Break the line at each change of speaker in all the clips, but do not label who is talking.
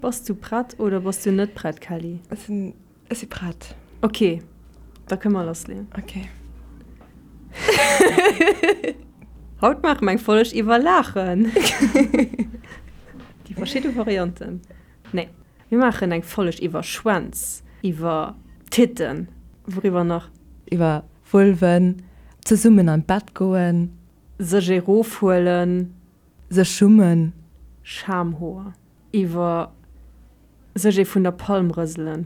Bass du prett oder bass du net prett, Kelly?
Ech sinn, ech si prett.
Ok, da kënne mer lassleeën.
Ok.
Haut maache mer eng Folg iwwer Laachen. Déi verschidde Varianten. Nee, mir maachen eng Folg iwwer Schwänz, iwwer Titten, wouriwwer nach?
Iwwer Vulven, zesummen an d'Bett goen.
Sech erofhuelen.
Sech schummen.
Schamhoer. Iwwer sech ee vun der Palm rëselen.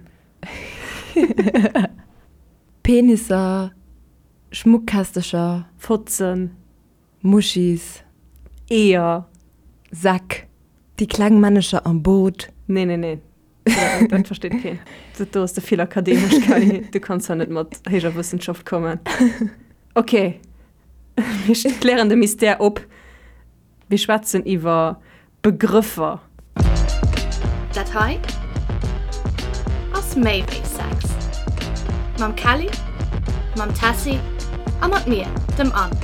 Penisser, Schmuckkästecher.
Fotzen.
Muschis.
Eeër.
Säck. Déi kleng Männecher am Boot.
Nee, nee, nee. Dat versteet keen. Dat do ass ze vill akademesch, Kelly. Du kanns hei net mat héijer Wëssenschaft kommen. Ok, mir klären de Mystère op. Mir schwätzen iwwer Begrëffer.
Dat hei ass méi wéi Sex. Mam Kelly, mam Tessy a mat mir, dem Anne.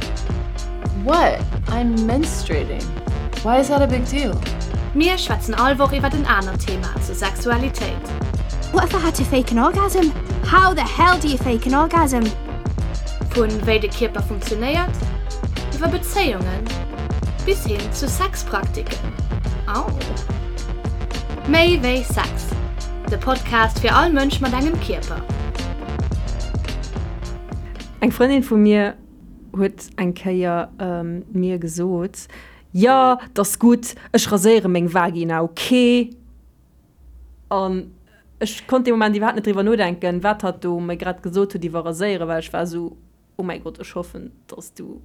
What? I'm menstruating. Why is that a big deal?
Mir schwätzen all Woch iwwert en anert Thema zur Sexualitéit.
What if I had to fake an orgasm? How the hell do you fake an orgasm?
Vu wéi de Kierper funktionéiert, iwwer Bezéiungen bis hin zu Sexpraktiken. Au! Méi wéi Sex, de Podcast fir all Mënsch mat engem Kierper.
Eng Frëndin vu mir huet eng Kéier mir gesot, Jo, 't ass gutt, ech raséiere meng Vagina, ok? An ech konnt dee Moment iwwerhaapt net driwwer nodenken, wat hatt do mir grad gesot huet iwwer Raséieren, well ech war esou, Oh mäi Gott, ech hoffen, dass du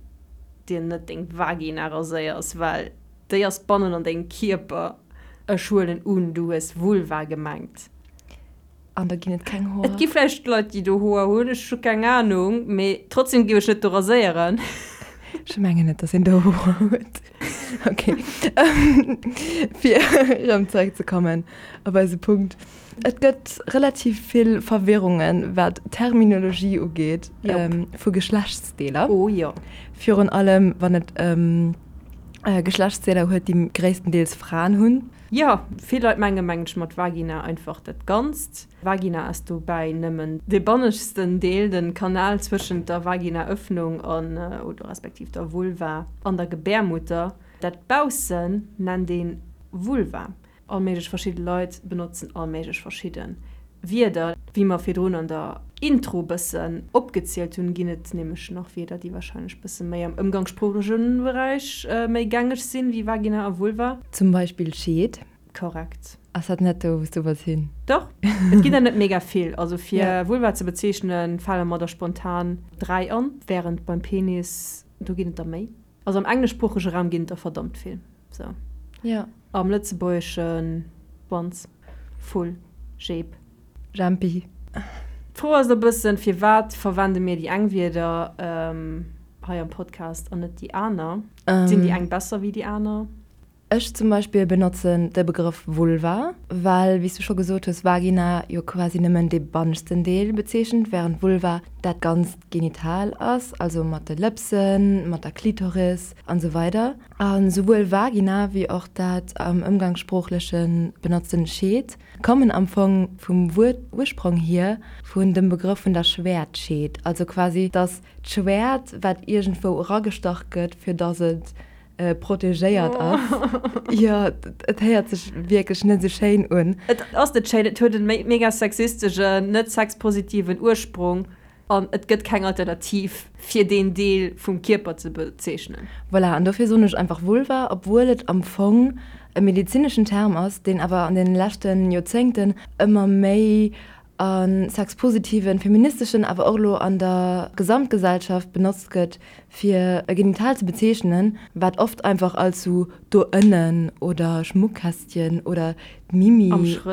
dir net deng Vagina raséiers, well déi ass bannen an dengem Kierper. Ech huelen un, du hues Vulva gemengt.
An da ginn et keng Hoer.
Et gi vläicht Leit, déi do Hoer hunn, ech hu keng Anung, mee trotzdem géif ech net do raséieren.
Ech mengen net, dass een do Hoer huet. Ok, fir erëm zeréckzekommen op eise Punkt. Et gëtt relativ vill Verwirrungen, wat d'Terminologie ugeet vu Geschlechtsdeeler.
Oh jo.
Virun allem, wann et ëm Geschlechtsdeeler huet, déi gréisstendeels Fraen hunn.
Jo, vill Leit menge mengen ech mat Vagina einfach dat Ganzt. Vagina ass dobäi nëmmen dee banneschtsten Deel, de Kanal zwëschent der Vaginaöffnung an, oder respektiv der Vulva an der Gebärmutter. Dat Baussen nennt ee Vulva. All méiglech verschidde Leit benotzen all méiglech verschidde Wierder. Wéi mer virdrun an der Intro bëssen opgezielt hunn, ginn et nämlech nach Wierder, déi warscheinlech bësse méi am ëmgangssproochleche Beräich méi gängeg sinn, wéi Vagina a Vulva.
Zum Beispill Scheed.
Korrekt.
Ass dat net do, wou s du wolls hin?
Dach, et ginn der net mega vill. Also fir Vulva ze bezeechnen, fale mer der spontan 3 an, wärend beim Penis, do ginn et der méi. Also am engleschsproochege Raum ginn et der verdammt vill. Sou.
Ja.
Am Lëtzebuergesche Wanz, Vull, Jeep.
Jempi.
D'Fro ass e bëssen, firwat verwende mir déi eng Wierder hei am Podcast an net déi aner? Sinn déi eng besser wéi déi aner?
Ech zum Beispill benotzen de Begrëff Vulva, well, wéi s du scho gesot hues, Vagina jo quasi nëmmen dee banneschten Deel bezeechent, wärend Vulva dat ganzt Genital ass, also mat de Lëpsen, mat der Klitoris an esou weider. A souwuel Vagina wéi och dat am Ëmgangssproochleche benotzten Scheed kommen am Fong vum Wuert-Ursprong hier vun dem Begrëff vun der Schwäertscheed, also quasi dass d'Schwäert, wat iergendwou eragestach gëtt, fir dass et protegéiert ass. Jo, et héiert sech wierklech net esou schéin un.
Et ass net schéin, et huet e mega sexistegen, net sexpositiven Ursprong an et gëtt keng Alternativ fir deen Deel vum Kierper ze bezeechnen.
Voilà, an dofir soen ech einfach Vulva, obwuel et am Fong e medezineschen Term ass, deen awer an deene leschte Joerzéngten ëmmer méi a sexpositiven, feministeschen, awer och elo an der Gesamtgesellschaft benotzt gëtt, fir e Genital ze bezeechnen, wat oft einfach als sou do ënnen oder Schmuckkästchen oder d'Mimi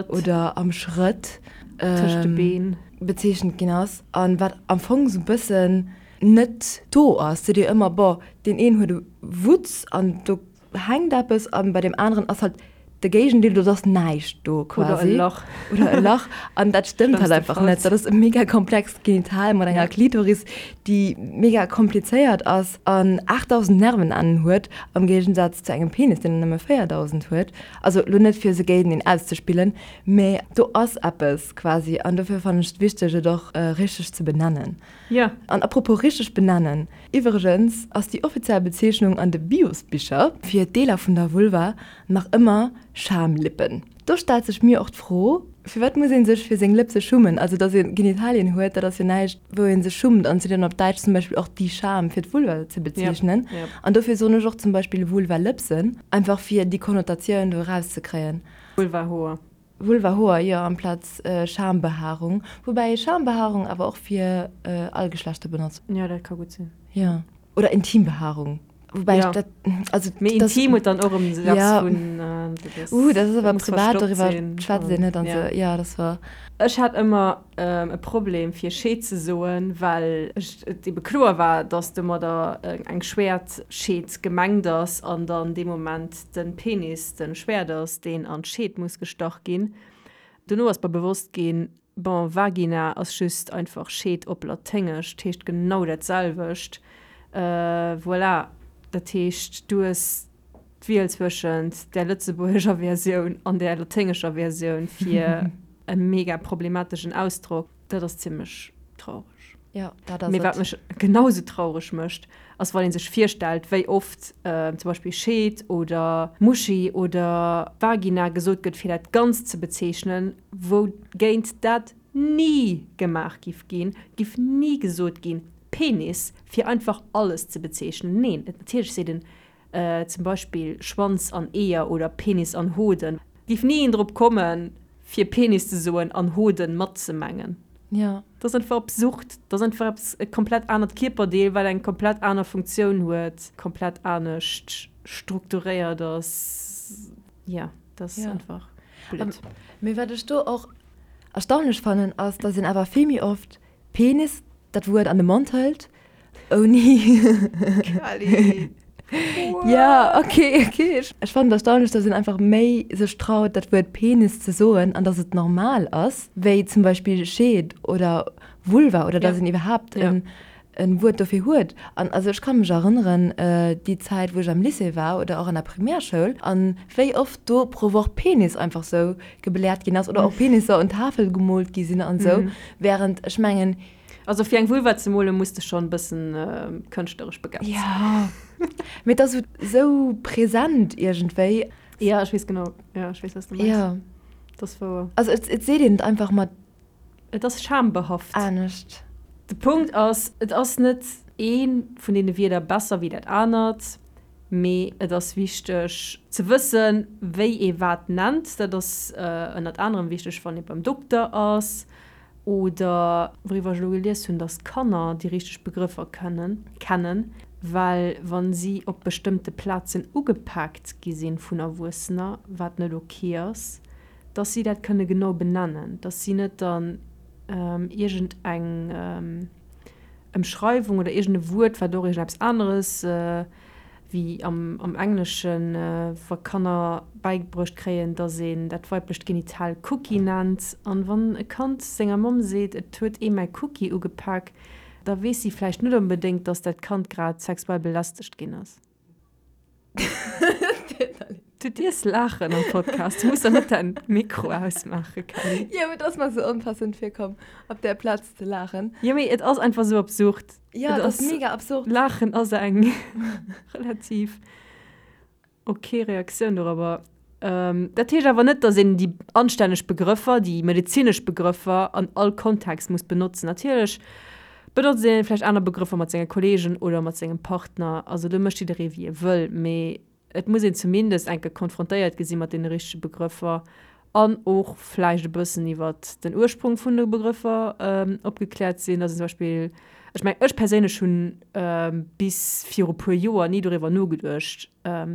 oder am Schrëtt
tëscht de Been
bezeechent ginn ass, a wat am Fong sou bëssen net do ass. Seet dir ëmmer, boah, deen een huet e Wutz an do hänkt eppes, a bei deem aneren ass halt. De Géigendeel, do ass näischt do quasi.
Oder e Lach.
Oder e Lach. An dat stëmmt halt einfach net. Dat ass e mega komplext Genital mat enger Klitoris, déi mega komplizéiert ass an 8.000 Nervenennen huet, am Géigensaz zu engem Penis, deen der nëmme 4.000 huet. Also elo net fir se géinteneen auszespillen, mä do ass eppes quasi. An dofir fannen ech et wichteg, et och richteg ze benennen.
Jo.
An apropos richteg benennen, Iwwregens ass déi offiziell Bezeechnung an de Biosbicher fir d'Deeler vun der Vulva nach ëmmer Schamlippen. Do stellt sech mir och d'Fro, firwat muss ee sech fir seng Lëpse schummen? Also datt ee Genitalien huet, dat ass jo näischt wou ee sech schummt an et seet een op Däitsch zum Beispill och die Scham fir d'Vulva ze bezeechnen. An dofir soen ech och zum Beispill Vulvalëpsen, einfach fir déi Konnotatioun do erauszekréien.
Vulvahoer.
Vulvahoer, jo, amplaz Schambehaarung. Woubäi ee Schambehaarung awer och fir all Geschlechter benotzt.
Jo, dat ka gutt sinn.
Jo. Oder Intimbehaarung. Woubäi ech dat,
also. Mee intim huet dann och erëm esou eppes vun.
Uh, dat ass awer privat, doriwwer schwätzt een net an esou. Jo, dat ass wouer.
Ech hat ëmmer e Problem fir Scheed ze soen, well ech et ebe kloer war, dass domadder eng Schwäertscheed gemengt ass an dann dee Moment de Penis de Schwäert ass, deen an d'Scheed muss gestach ginn. Dono ass mer bewosst ginn, bon, Vagina ass just einfach Scheed op Laténgesch, 't heescht genau dat selwecht. Voilà, dat heescht, du hues d'Wiel zwëschent där lëtzebuergescher Versioun an där laténgescher Versioun fir e mega problemateschen Ausdrock. Dat ass zimmlech traureg.
Jo, dat ass
Mee wat
et.
mech genau sou traureg mécht, ass wann ee sech virstellt, wéi oft zum Beispill Scheed oder Muschi oder Vagina gesot gëtt, fir dat Ganzt ze bezeechnen, wougéint dat ni gemaach giff ginn, giff ni gesot ginn, Penis, fir einfach alles ze bezeechnen. Neen, et natierlech seet en Zum Beispill Schwanz an Eeër oder Penis an Hoden. Giff ni een drop kommen fir Penis ze soen an Hoden matzemengen.
Jo.
Dat ass einfach absurd. Dat ass einfach eppes, e komplett anert Kierperdeel, wat eng komplett aner Funktioun huet, komplett anescht strukturéiert ass. Jo, dat ass einfach blöd.
Mee wat ech do och erstaunlech fannen, ass, dass een awer vill méi oft Penis dat Wuert an de Mond hëlt, ouni.
Kelly!
Ja, okay, okay. Ech fannen et erstaunlech, dass een einfach méi sech traut, dat Wuert Penis ze soen an dass et normal ass, wéi zum Beispill Scheed oder Vulva oder dass een iwwerhaapt en en Wuert dofir huet. An also ech ka mech erënneren, déi Zäit, wou ech am Lycée war oder och an der Primärschoul, an wéi oft do pro Woch Penis einfach sou gebläert ginn ass oder och Penisser un d'Tafel gemoolt gi sinn an esou, während ech mengen.
Also fir eng Vulva ze molen, muss de schonn e bëssen kënschtleresch begabt
sinn. Jo, mee et ass esou present iergendwéi.
Jo, ech weess genau, jo, ech weess, wat s de mengs.
Jo.
Dat ass wouer.
Also et, et seet een et einfach mat.
Et ass schambehaft.
Anescht.
De Punkt ass, et ass net ee vun deene Wierder besser wéi dat anert. Mee et ass wichteg ze wëssen, wéi ee wat nennt. Dat ass ënnert anerem wichteg, wann ee beim Dokter ass oder, wouriwwer ech elo gelies hunn, datt Kanner déi richteg Begrëffer kënnen kennen, well wa si op bestëmmte Plazen ugepaakt gi sinn vun Erwuessener, wat net ok ass, datt si dat kënne genau benennen, datt si net dann iergend eng Emschreiwung oder iergend e Wuert, wat och iergendeppes aneres, wéi am am Engleschen, wa Kanner bäibruecht kréien, dass een dat weiblecht Genital Cookie nennt. An wann e Kand senger Mamm seet, et huet ee mäi Cookie ugepak, da weess si vläicht net onbedéngt, dass dat Kand grad sexuell belästegt ginn ass. Du dierfs laachen am Podcast, du muss der net däin Mikro ausmaachen, Kelly.
Jo, mee et ass mer sou onpassend virkomm, op där Plaz ze laachen.
Jo, mee et ass einfach sou absurd.
Jo, et ass mega absurd.
Laachen ass eng relativ ok Reaktioun dorobber. Dat heescht awer net, datt een déi anstänneg Begrëffer, déi medezinesch Begrëffer an all Kontext muss benotzen. Natierlech benotzt ee vläicht aner Begrëffer mat senge Kolleegen oder mat sengem Partner. Also do mécht jidderee wéi e wëll. Mee et muss een zumindest eng Kéier konfrontéiert gi si mat deene richtege Begrëffer an och vläicht e bëssen iwwer den Ursprung vun de Begrëffer opgekläert sinn. Dass een zum Beispill, ech mengen, ech perséinlech hunn bis viru puer Joer ni doriwwer nogeduecht,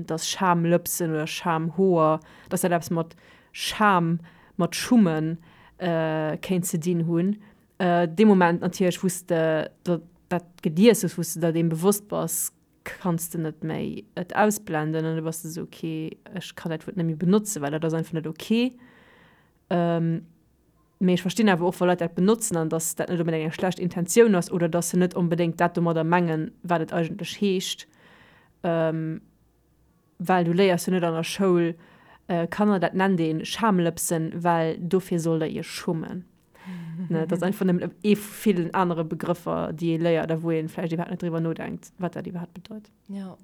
dass Schamlëpsen oder Schamhoer, dass dat eppes mat Scham, mat Schummen kéint ze dinn hunn. Dee Moment natierlech, wou s de dat gelies hues, wou s de der deem bewosst bass, Kanns de net méi et ausblenden an du bass de sou, ok, ech kann dat Wuert net méi benotzen, well dat ass einfach net ok. Mee ech verstinn awer och, wa Leit dat benotzen an dass dat net onbedéngt eng schlecht Intentioun ass oder dass se net onbedéngt dat domadder mengen, wat et eigentlech heescht. Well du léiers jo net an der Schoul, Kanner, dat nennt ee Schamlëpsen, well dofir sollt der iech schummen. Ne, dat ass einfach nëmmen ee vu villen anere Begrëffer, déi ee léiert a wou ee vläicht iwwerhaapt net driwwer nodenkt, wat dat iwwerhaapt bedeit.
Jo.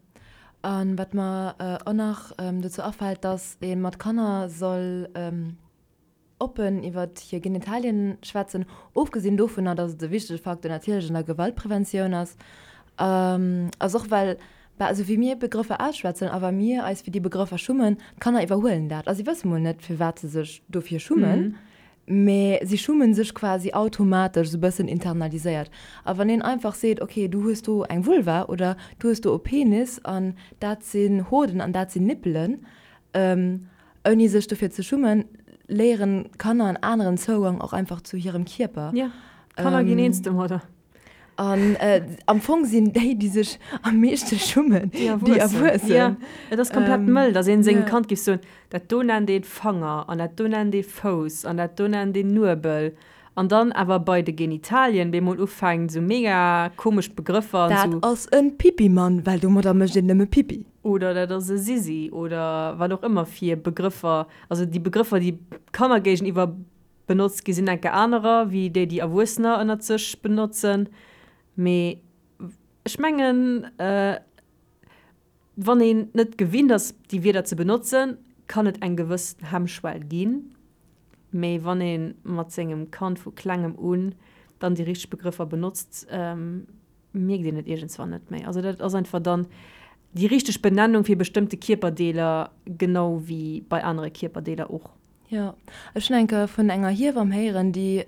A wat mer och nach dozou afält, dass ee mat Kanner soll oppen iwwer hir Genitalien schwätzen, ofgesinn dovunner, dass et e wichtege Facteur natierlech an der Gewaltpreventioun ass, ass och well, bah, esou wéi mir Begrëffer ausschwätzen a wa mir eis fir déi Begrëffer schummen, d'Kanner iwwerhuelen dat a si wësse mol net, firwat se sech dofir schummen, mä si schummen sech quasi automatesch, esou e bëssen internaliséiert. A wann een einfach seet, ok, du hues do eng Vulva oder du hues do e Penis an dat sinn Hoden an dat sinn Nippelen, Ouni sech dofir ze schummen, léieren d'Kanner en aneren Zougang och einfach zu hirem Kierper.
Ja, d'Kanner ginn eens domadder.
An am Fong sinn déi, déi sech am meeschte schummen, déi Erwuessen.
Ja, et ass komplett mëll, datt een sengem Kand géif soen, dat do nennt ee Fanger an dat do nennt ee Fouss an dat do nennt een Nuebel. An dann awer bei de Genitalien bemol ufänkt esou mega komesch Begrëffer an
esou. Dat ass en Pipi-Mann, well domadder mécht een nëmme Pipi.
Oder dat ass e Sisi oder wat och ëmmer fir Begrëffer. Also déi Begrëffer, déi Kanner géigeniwwer benotzt gi sinn enke anerer wéi déi, déi Erwuessener ënnert sech benotzen. Mee ech mengen, wann een net gewinnt ass, déi Wierder ze benotzen, kann et eng gewëss Hemmschwell ginn. Mee wann ee mat sengem Kand vu klengem un dann déi richteg Begrëffer benotzt, mierkt een et iergendswann net méi. Also dat ass einfach dann déi richteg Benennung fir bestëmmte Kierperdeeler, genau wéi bei anere Kierperdeeler och.
Jo, ech hunn eng Kéier vun enger Hiewamm héieren, déi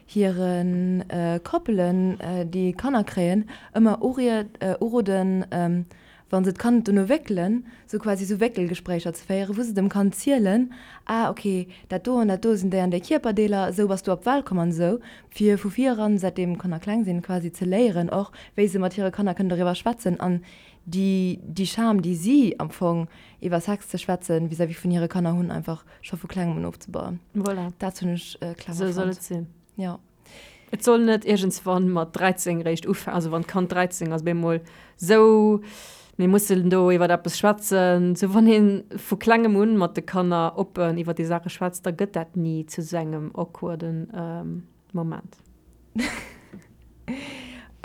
hire Koppelen, déi Kanner kréien, ëmmer uroden, wa se d'Kand dono wéckelen, sou quasi sou Wéckelgespréicher ze féieren, wou se dem Kand zielen, ah ok, dat do an dat do sinn déi an déi Kierperdeeler, esou bass du op d'Welt komm an esou, fir vu vir eran, säitdeem d'Kanner kleng sinn, quasi ze léieren och, wéi se mat hire Kanner kënnen doriwwer schwätzen an déi déi Scham, déi si am Fong iwwer Sex ze schwätzen vis-à-vis vun hire Kanner hunn, einfach scho vu klengem un ofzebauen.
Voilà.
Dat hunn ech
clever fonnt. Sou soll et sinn.
Jo.
Et soll net iergendswann mat 13 réischt ufänken, also wann d'Kand 13 ass, op eemol sou, mir mussen do iwwer eppes schwätzen. Sou wann ee vu klengem un mat de Kanner oppen iwwer déi Saache schwätzt, da gëtt dat ni zu sou engem awkwarden Moment.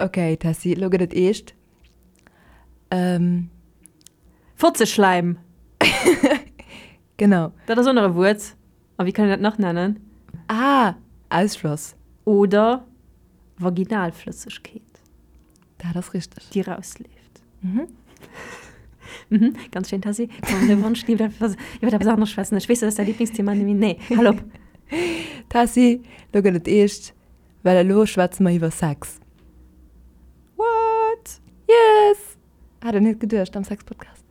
Ok, Tessy, elo gëtt et eescht. Ähm.
Fotzeschläim!
Genau.
Dat ass och nach e Wuert. A wéi kann een dat nach nennen?
Ah, Ausfloss.
Oder Vaginalflëssegkeet.
Dat ass richteg.
Déi rausleeft. Mhm. Mhm, ganz schéin, Tessy. Komm, de Wonsch iwwer etwas, iwwer etwas aneres schwätzen. Ech weess, dat ass däi Lieblingsthema, mee nee, hal op.
Tessy, lo gëtt et eescht, well elo schwätze mer iwwer Sex.
What?
Yes! Hat een net geduecht am Sex-Podcast.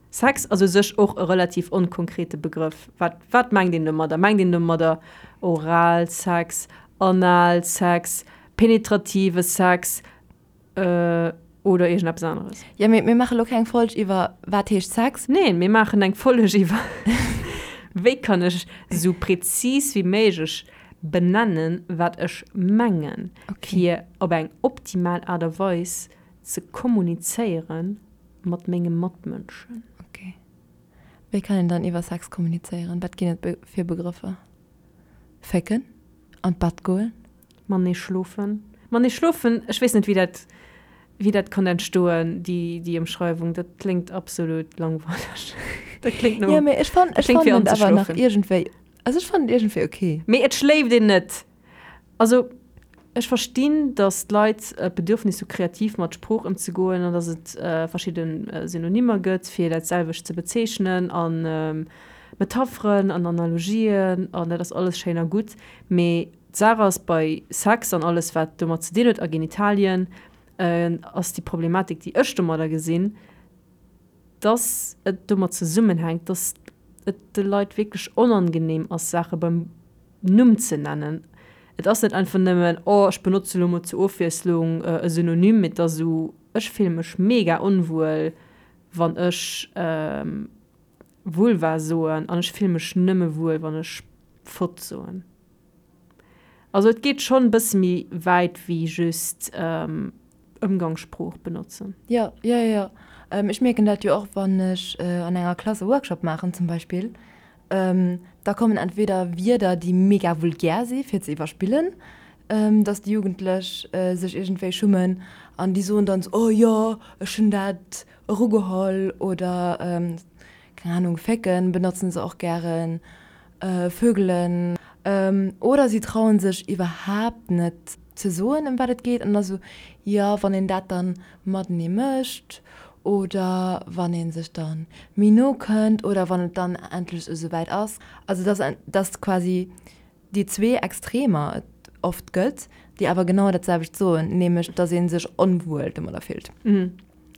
Sex ass u sech och e relativ onkonkrete Begrëff. Wat, wat mengt een domadder? Mengt een domadder Oralsex, Analsex, penetrative Sex oder iergendeppes aneres?
Jo, mee mir maache lo keng Folg iwwer wat heescht Sex.
Neen, mir maachen eng Folg iwwer wéi kann ech esou prezis wéi méiglech benennen, wat ech mengen, fir op eng optimal Aart a Weis ze kommunizéiere mat menge Matmënschen.
Ok. Wéi kann een dann iwwer Sex kommunizéieren? Wat ginn et fir Begrëffer? Fécken? An d'Bett goen?
Matenee schlofen? Matenee schlofen, ech weess net, wéi dat, wéi dat konnt entstoen, déi, déi Ëmschreiwung. Dat kléngt absolut langweileg. Dat kléngt no.
Jo, mee ech fannen, ech fannen et awer nach iergendwéi Also ech fannen et iergendwéi ok.
Mee et schléift een net. Also ech verstinn, datt d'Leit d'Bedürfnis hu kreativ mat Sprooch ëmzegoen an datt et verschidde Synonymer gëtt fir dat selwecht ze bezeechnen a Metapheren an Analogien an dat ass alles schéin a gutt. Mee d'Saach ass, bei Sex an alles wat domat ze dinn huet a Genitalien ass déi Problematik déi ech domadder gesinn, dass et domat zesummenhänkt, dass et de Leit wierklech onangenehm ass, Saache beim Numm ze nennen. Et ass net einfach nëmmen, oh, ech benotze lo mol zur Ofwiesslung e Synonym, mee et ass esou, Ech fille mech mega onwuel, wann ech Vulva soen an ech fille mech nëmme wuel, wann ech Fotz soen. Also et geet schonn e bësse méi wäit wéi just Ëmgangssprooch benotzen.
Jo, jo, jo, jo. Ech mierken dat jo och, wann ech an enger Klass e Workshop maachen zum Beispill, da kommen entweder Wierder, déi mega vulgär si fir ze iwwerspillen, dass déi Jugendlech sech iergendwéi schummen an déi soen dann esou, oh jo, ech hunn dat erugeholl oder keng Ahnung, fécken benotzen se och gären, vögelen. Oder si trauen sech iwwerhaapt net ze soen, ëm wat et geet an da sou, jo, wann een dat dann matenee mécht oder wann ee sech dann méi no kënnt oder wann et dann endlech esou wäit ass. Also dass, dass quasi déi zwee Extremer et oft gëtt, déi awer genau dat selwecht soen, nämlech dass ee sech onwuel domadder fillt.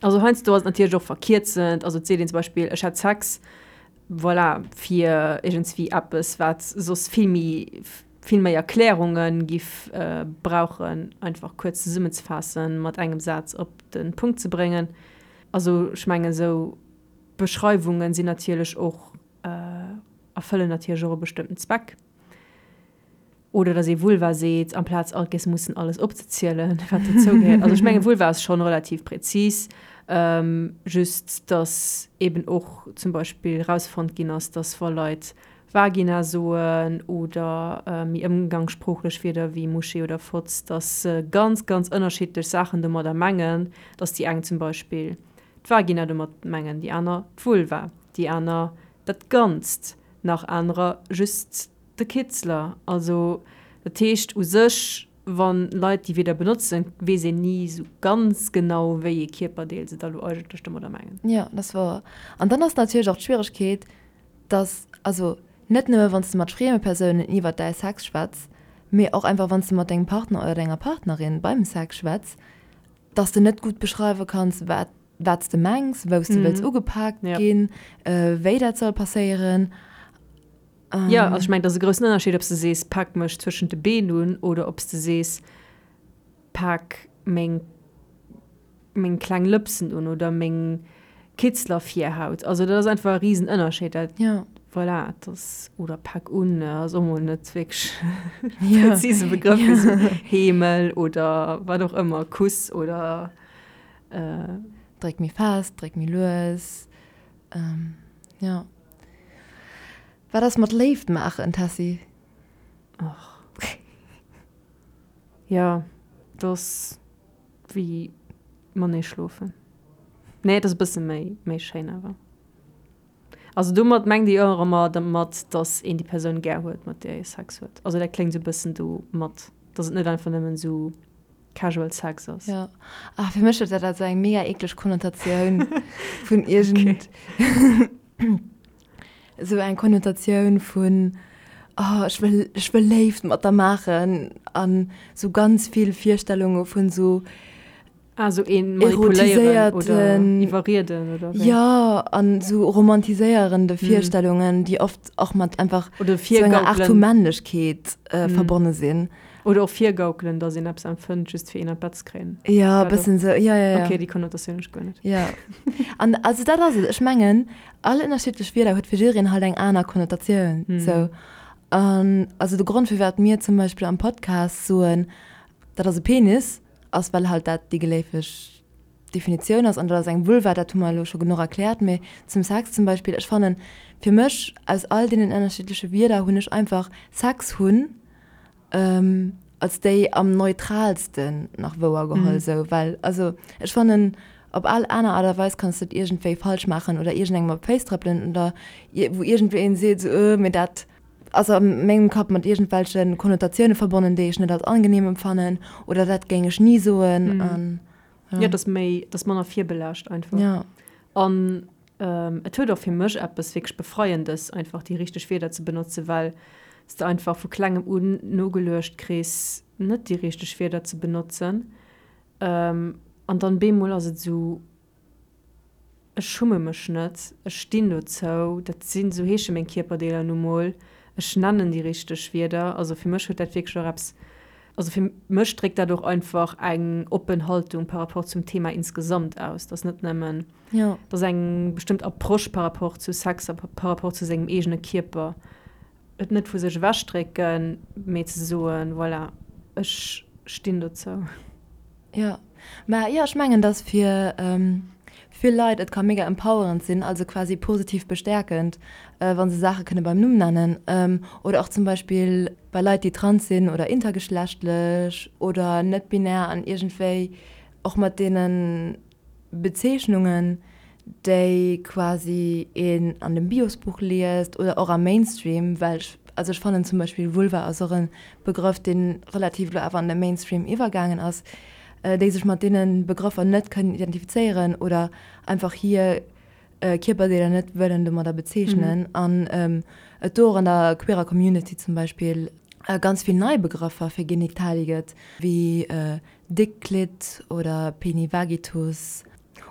Also heiansdo ass et natierlech och verkierzend, also et seet een zum Beispill, ech hat Sex, voilà, fir iergendswéi eppes, wat soss vill méi, vill méi Erklärunge giff brauchen, einfach kuerz zesummenzefaassen, mat engem Saz op de Punkt ze bréngen. Also ech mengen, esou Beschreiwunge sinn natierlech och, erfëllen natierlech och e bestëmmten Zweck. Oder dass ee Vulva seet, amplaz alt géiss mussen alles opzezielen, wat dozou gehéiert. Also ech mengen, Vulva ass schonn relativ präzis, just dass eben och zum Beispill erausfonnt ginn ass, dass wa Leit Vagina soen oder méi ëmgangssproochlech Wierder wéi Muschi oder Fotz, dass se ganz, ganz ënnerschiddlech Saachen domadder mengen, dass déi eng zum Beispill d'Vagina domat mengen, déi aner d'Vulva, déi aner dat Ganzt, nach anerer just De Kitzler, Also, dat heescht u sech, wa Leit déi Wierder benotzen, weess een ni esou ganz genau, wéi ee Kierperdeel se da lo eigentlech domadder mengen.
Jo, dat ass wouer. An dann ass natierlech och d'Schwieregkeet, dass, also net nëmme wann s de mat frieme Persounen iwwert däi Sex schwätz, mee och einfach wann s de mat dengem Partner oder denger Partnerin beim Sex schwätz, dass de net gutt beschreiwe kanns, wat wat s de mengs, wou s de wëlls ugepaakt ginn, wéi dat soll passéieren.
Jo, also ech mengen, et ass e groussen Ënnerscheed, ob s de sees, pak mech zwëschent de Been un oder ob s de sees, pak meng, meng kleng Lëpsen un oder meng Kitzlervirhaut. Also dat ass einfach e Risenënnerscheed. Dat,
ja.
Voilà, dat ass, oder pak un ass och mol net wierklech e präzise Begrëff fir esou Heemel oder wat och ëmmer, Kuss oder.
Dréck méi fest, dréck méi lues, jo. Wat ass mat Léift maachen, Tessy?
Och. Jo, dat ass wéi matenee schlofen. Nee, et ass e bësse méi, méi schéin awer. Also domat mengt ee jo och ëmmer dermat, datt een déi Persoun gär huet, mat där ee Sex huet. Also dat kléngt esou e bëssen do mat, datt et net einfach nëmmen esou Casual Sex ass.
Jo. Ah, fir mech huet dat esou eng mega eekleg Konnotatioun vun iergend. Esou eng Konnotatioun vun, oh ech wëll, ech wëll Léift mat der maachen an esou ganz vill Virstellunge vun esou.
Ah, esou een manipuléieren oder iwwerrieden oder
wéi? Jo, an esou romantiséierende Virstellungen, déi oft och mat einfach esou enger Aart vu Männlechkeet verbonne sinn.
Oder och virgaukelen, dass een eppes empfënnt, just fir een an d'Bett ze kréien.
Jo, e bëssen esou, jo, jo, jo.
Okay, déi Konnotatioun hunn ech guer net.
Jo. An also dat ass et, ech mengen, all ënnerschiddlech Wierder huet fir jiddereen halt eng aner Konnotatioun, sou. An also de Grond, firwat mir zum Beispill am Podcast soen, dat ass e Penis, ass well halt dat déi geléifeg Definitioun ass an dat ass eng Vulva, dat hu mer elo scho genuch erkläert. Mee zum Sex zum Beispill, ech fannen, fir mech, aus all deenen ënnerschiddleche Wierder hunn ech einfach Sex hunn als déi am neutralsten nach wouer geholl esou, well also ech fannen op all aner Aart a Weis kanns de et iergendwéi falsch maachen oder iergendengem op d'Féiss trëppelen oder wou iergendween seet esou, mee dat ass a mengem Kapp mat iergendwelche Konnotatioune verbonnen, déi ech net als angenehm empfannen oder dat géing ech ni soen an.
Jo, et ass méi, et ass manner virbelaascht einfach.
Ja.
An et huet och fir mech eppes wierklech Befreiendes, einfach déi richteg Wierder ze benotzen, well s de einfach vu klengem un nogeluecht kriss, net déi richteg Wierder ze benotzen. An dann bemol ass et esou, Ech schumme mech net, ech stinn dozou, dat sinn, esou heesche meng Kierperdeeler nu mol, ech nennen déi richteg Wierder. Also fir mech huet dat wierklech och eppes. Also fir mech dréckt dat och einfach eng oppen Haltung par rapport zum Thema insgesamt aus, dass net nëmmen, dass eng bestëmmt Approche par rapport zu Sex a par rapport zu sengem eegene Kierper, et net vu sech ewechdrécken, mee ze soen, voilà, ech stinn dozou.
Jo, mä jo, ech mengen, dass fir vill Leit et ka mega empowerend sinn, also quasi positiv bestäerkend, wa se Saache kënne beim Numm nennen. Oder och zum Beispill bei Leit, déi trans sinn oder intergeschlechtlech oder net-binär an iergendwéi och mat deene Bezeechnungen, déi quasi een an dem Biosbuch liest oder och am Mainstream, well ech, also ech fannen zum Beispill Vulva ass och e Begrëff, dee relativ elo awer an de Mainstream iwwergaangen ass, déi sech mat deene Begrëffer net kënnen identifizéieren oder einfach hir Kierperdeeler net wëllen domadder bezeechnen an et do och an der queerer Community zum Beispill ganz vill nei Begrëffer fir Genitalie gëtt, wéi Dickklitt oder Penivagitus.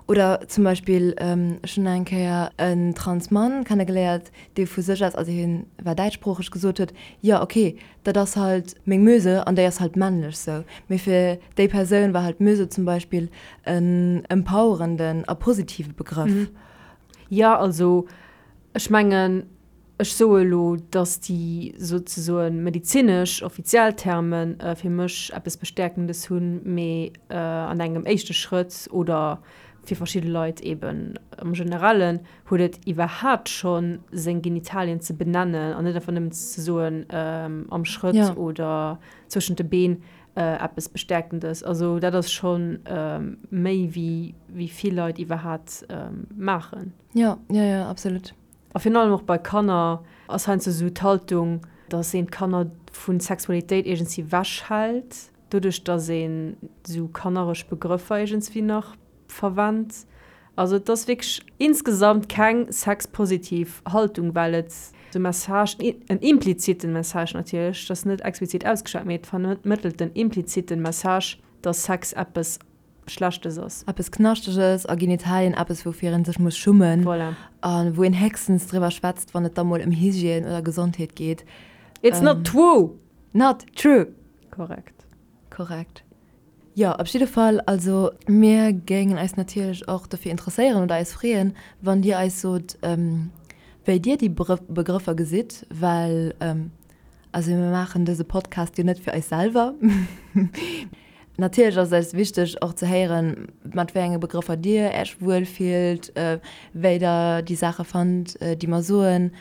Oder zum Beispill, ech hunn eng Kéier en trans Mann kennegeléiert, dee vu sech aus, also hien war däitschsproocheg, gesot huet, jo ok, dat ass halt meng Möse an déi ass halt männlech sou. Mee fir déi Persoun war halt Möse zum Beispill en empowerenden a positive Begrëff.
Jo, also ech mengen, Ech soe elo, datt déi souzesoen medezinesch offiziell Terme fir mech eppes Bestäerkendes hunn, mee an engem éischte Schrëtt oder fir verschidde Leit eeben am Generellen huet et iwwerhaapt schonn seng Genitalien ze benennen an net einfach nëmmen ze soen am Schrëtt oder zwëschent de Been eppes Bestäerkendes. Also dat ass scho méi wéi vill Leit iwwerhaapt maachen.
Jo, jo, jo, absolut.
A virun allem och bei Kanner ass heiansdo esou d'Haltung, dass een d'Kanner vu Sexualitéit iergendswéi ewechhält, doduerch dass een esou kanneresch Begrëffer iergendswéi nach verwennt. Also et ass wierklech insgesamt keng sexpositiv Haltung, well et de Message, en impliziten Message natierlech, et ass net explizit ausgeschwat, mee et vermëttelt den impliziten Message, dass Sex eppes Schlechtes ass.
Eppes Knaschteges a Genitalien, eppes woufir een sech muss schummen.
Voilà.
A wou een héchstens driwwer schwätzt, wann et da mol ëm Hygiène oder Gesondheet geet.
It's not true!
Not true!
Korrekt.
Korrekt. Jo, op jidde Fall, also mir géingen eis natierlech och dofir interesséieren oder eis freeën, wann Dir eis sot, wéi Dir déi Begrëffer gesitt, well Also mir maachen dëse Podcast jo net fir eis selwer. Natierlech ass et eis wichteg och ze héieren, mat wéi enge Begrëffer Dir Äech wuel fillt, wéi Der déi Saache fannt, déi mer soen,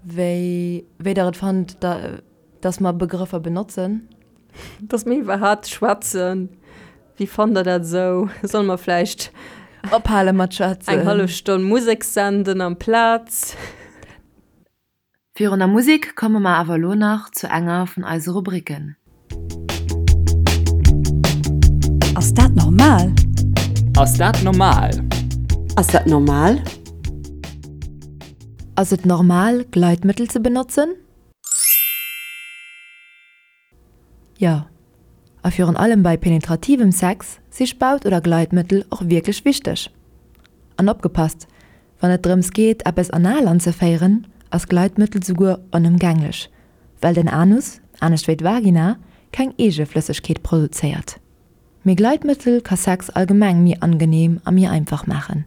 wéi wéi Der et fannt, dass mer Begrëffer benotzen.
Dass mir iwwerhaapt schwätzen. Wéi fannt Der dat esou? Solle mer vläicht
ophale mat schwätzen?
Eng hallef Stonn Musek senden amplaz?
Virun der Musek komme mer awer elo nach zu enger vun eise Rubriken.
Ass dat normal?
Ass dat normal?
Ass dat normal?
Ass et normal, Gleitmëttel ze benotzen? Jo, a virun allem bei penetrativem Sex si Spaut oder Gleitmëttel och wierklech wichteg. An opgepasst, wann et drëms geet eppes anal anzeféieren, ass Gleitmëttel souguer onëmgänglech, well den Anus, anescht wéi d'Vagina, keng eege Flëssegkeet produzéiert. Mee Gleitmëttel ka Sex allgemeng méi angeneem a méi einfach maachen.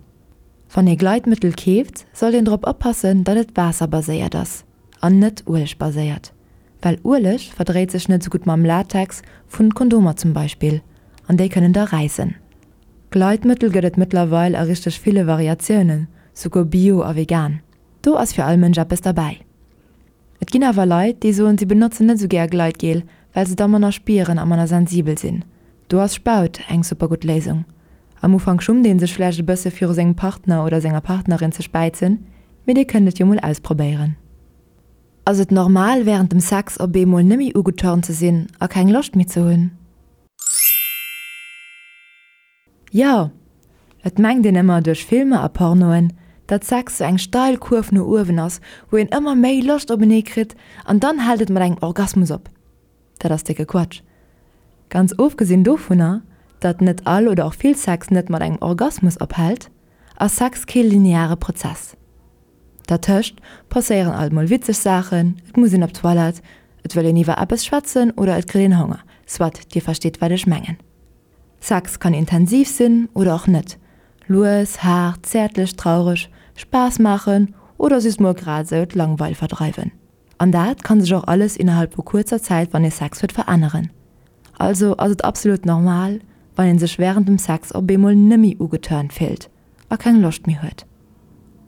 Wann ee Gleitmëttel keeft, sollt een drop oppassen, datt et waasserbaséiert ass an net uelegbaséiert. Well Ueleg verdréit sech net sou gutt mam Latex vun Kondomer zum Beispill, an déi kënnen da räissen. Gleitmëttel gëtt et mëttlerweil a richteg ville Variatiounen, souguer bio a vegan. Do ass fir all Mënsch eppes derbäi. Et ginn awer Leit, déi soen si benotzen net sou gär Gleitgel, well se da manner spieren a manner sensibel sinn. Do ass Spaut eng super gutt Léisung. Am Ufank schummt een sech vläicht e bësse viru sengem Partner oder senger Partnerin ze späizen, mee dir kënnt et jo mol ausprobéieren. Ass et normal wärend dem Sex op eemol nemmi ugeturnt ze sinn a keng Loscht méi ze hunn? Jo! Et mengt een ëmmer duerch Filmer a Pornoen, datt Sex sou eng steil Kurv no uewen ass, wou een ëmmer méi Loscht openee kritt an dann hält et mat engem Orgasmus op. Dat ass décke Quatsch. Ganz ofgesinn dovunner, datt net all oder och vill Sex net mat engem Orgasmus ophält, ass Sex kee lineare Prozess. Dertëscht passéieren alt mol witzeg Saachen, et muss een op d'Toilette, Et wëll een iwwer eppes schwätzen oder et kritt een Honger, soit, dir versteet wat ech mengen. Sex kann intensiv sinn oder och net, lues, haart, zäertlech, traureg, Spaass maachen oder just mol grad esou d'Langweil verdreiwen. An dat kann sech och alles innerhalb vu kuerzer Zäit wann ee Sex huet veränneren. Also ass et absolut normal wann een sech wärend dem Sex op eemol nemmi ugeturnt fillt a keng Loscht méi huet.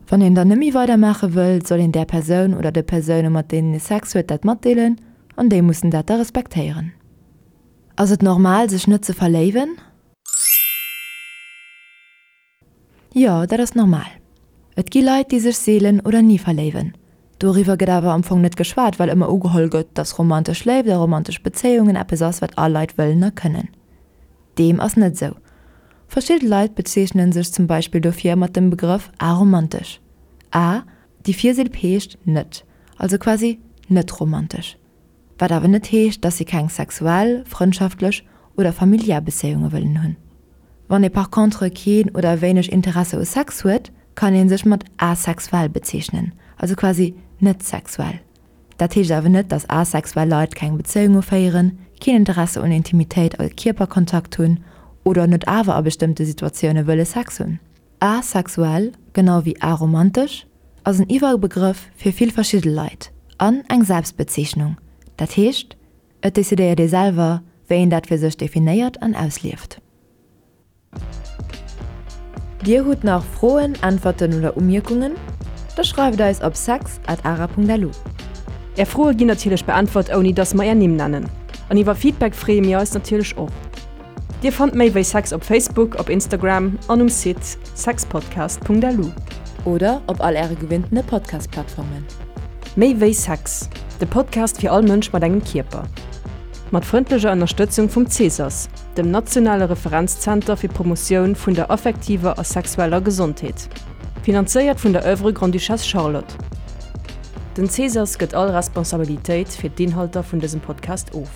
Wann een dann nemmi weider maache wëll, soll een där Persoun oder de Persoune mat deenen ee Sex huet dat matdeelen an déi mussen dat da respektéieren. Ass et normal sech net ze verléiwen? Jo, dat ass normal. Et gi Leit, déi sech seelen oder ni verléiwen. Doriwwer gëtt awer am Fong net geschwat, well ëmmer ugeholl gëtt, dass romantesch Léift a romantesch Bezéiungen eppes ass, wat all Leit wëllen a kënnen. Deem ass net esou. Verschidde Leit bezeechnen sech zum Beispill dofir mat dem Begrëff aromantesch. A, déi Virsilb heescht net, also quasi net romantesch. Wat awer net heescht, dass si keng sexuell, frëndschaftlech oder familiär Bezéiunge wëllen hunn. Wann ee par contre keen oder wéineg Interesse u Sex huet, kann ee sech mat asexuell bezeechnen, also quasi net sexuell. Dat heescht awer net, dass asexuell Leit keng Bezéiunge féieren, keen Interesse un Intimitéit a Kierperkontakt hunn oder net awer a bestëmmte Situatioune wëlle Sex hunn. Asexuell, genau wéi aromantesch, ass en Iwwerbegrëff fir vill verschidde Leit an eng Selbstbezeechnung, dat heescht, et decidéiert ee selwer, wéi een dat fir sech definéiert an auslieft. Dir hutt nach Froen, Äntwerten oder Umierkungen? Da schreift eis op sex at ara.lu.
Är Froe ginn natierlech beäntwert, ouni dass mer är Nimm nennen. An iwwer Feedback freeë mir eis natierlech och. Dir fannt méi wéi Sex op Facebook, op Instagram an um Site sexpodcast.lu.
Oder op all äre gewinntene Podcast-Plattformen.
Méi wéi Sex, de Podcast fir all Mënsch mat engem Kierper. Mat frëndlecher Ënnerstëtzung vum CSAS, dem nationale Referenzzenter fir d'Promotioun vun der affektiver a sexueller Gesondheet. Finanzéiert vun der Oeuvre Grande-Duchesse Charlotte. Den CSAS gëtt all Responsabilitéit fir d'Inhalter vun dësem Podcast of.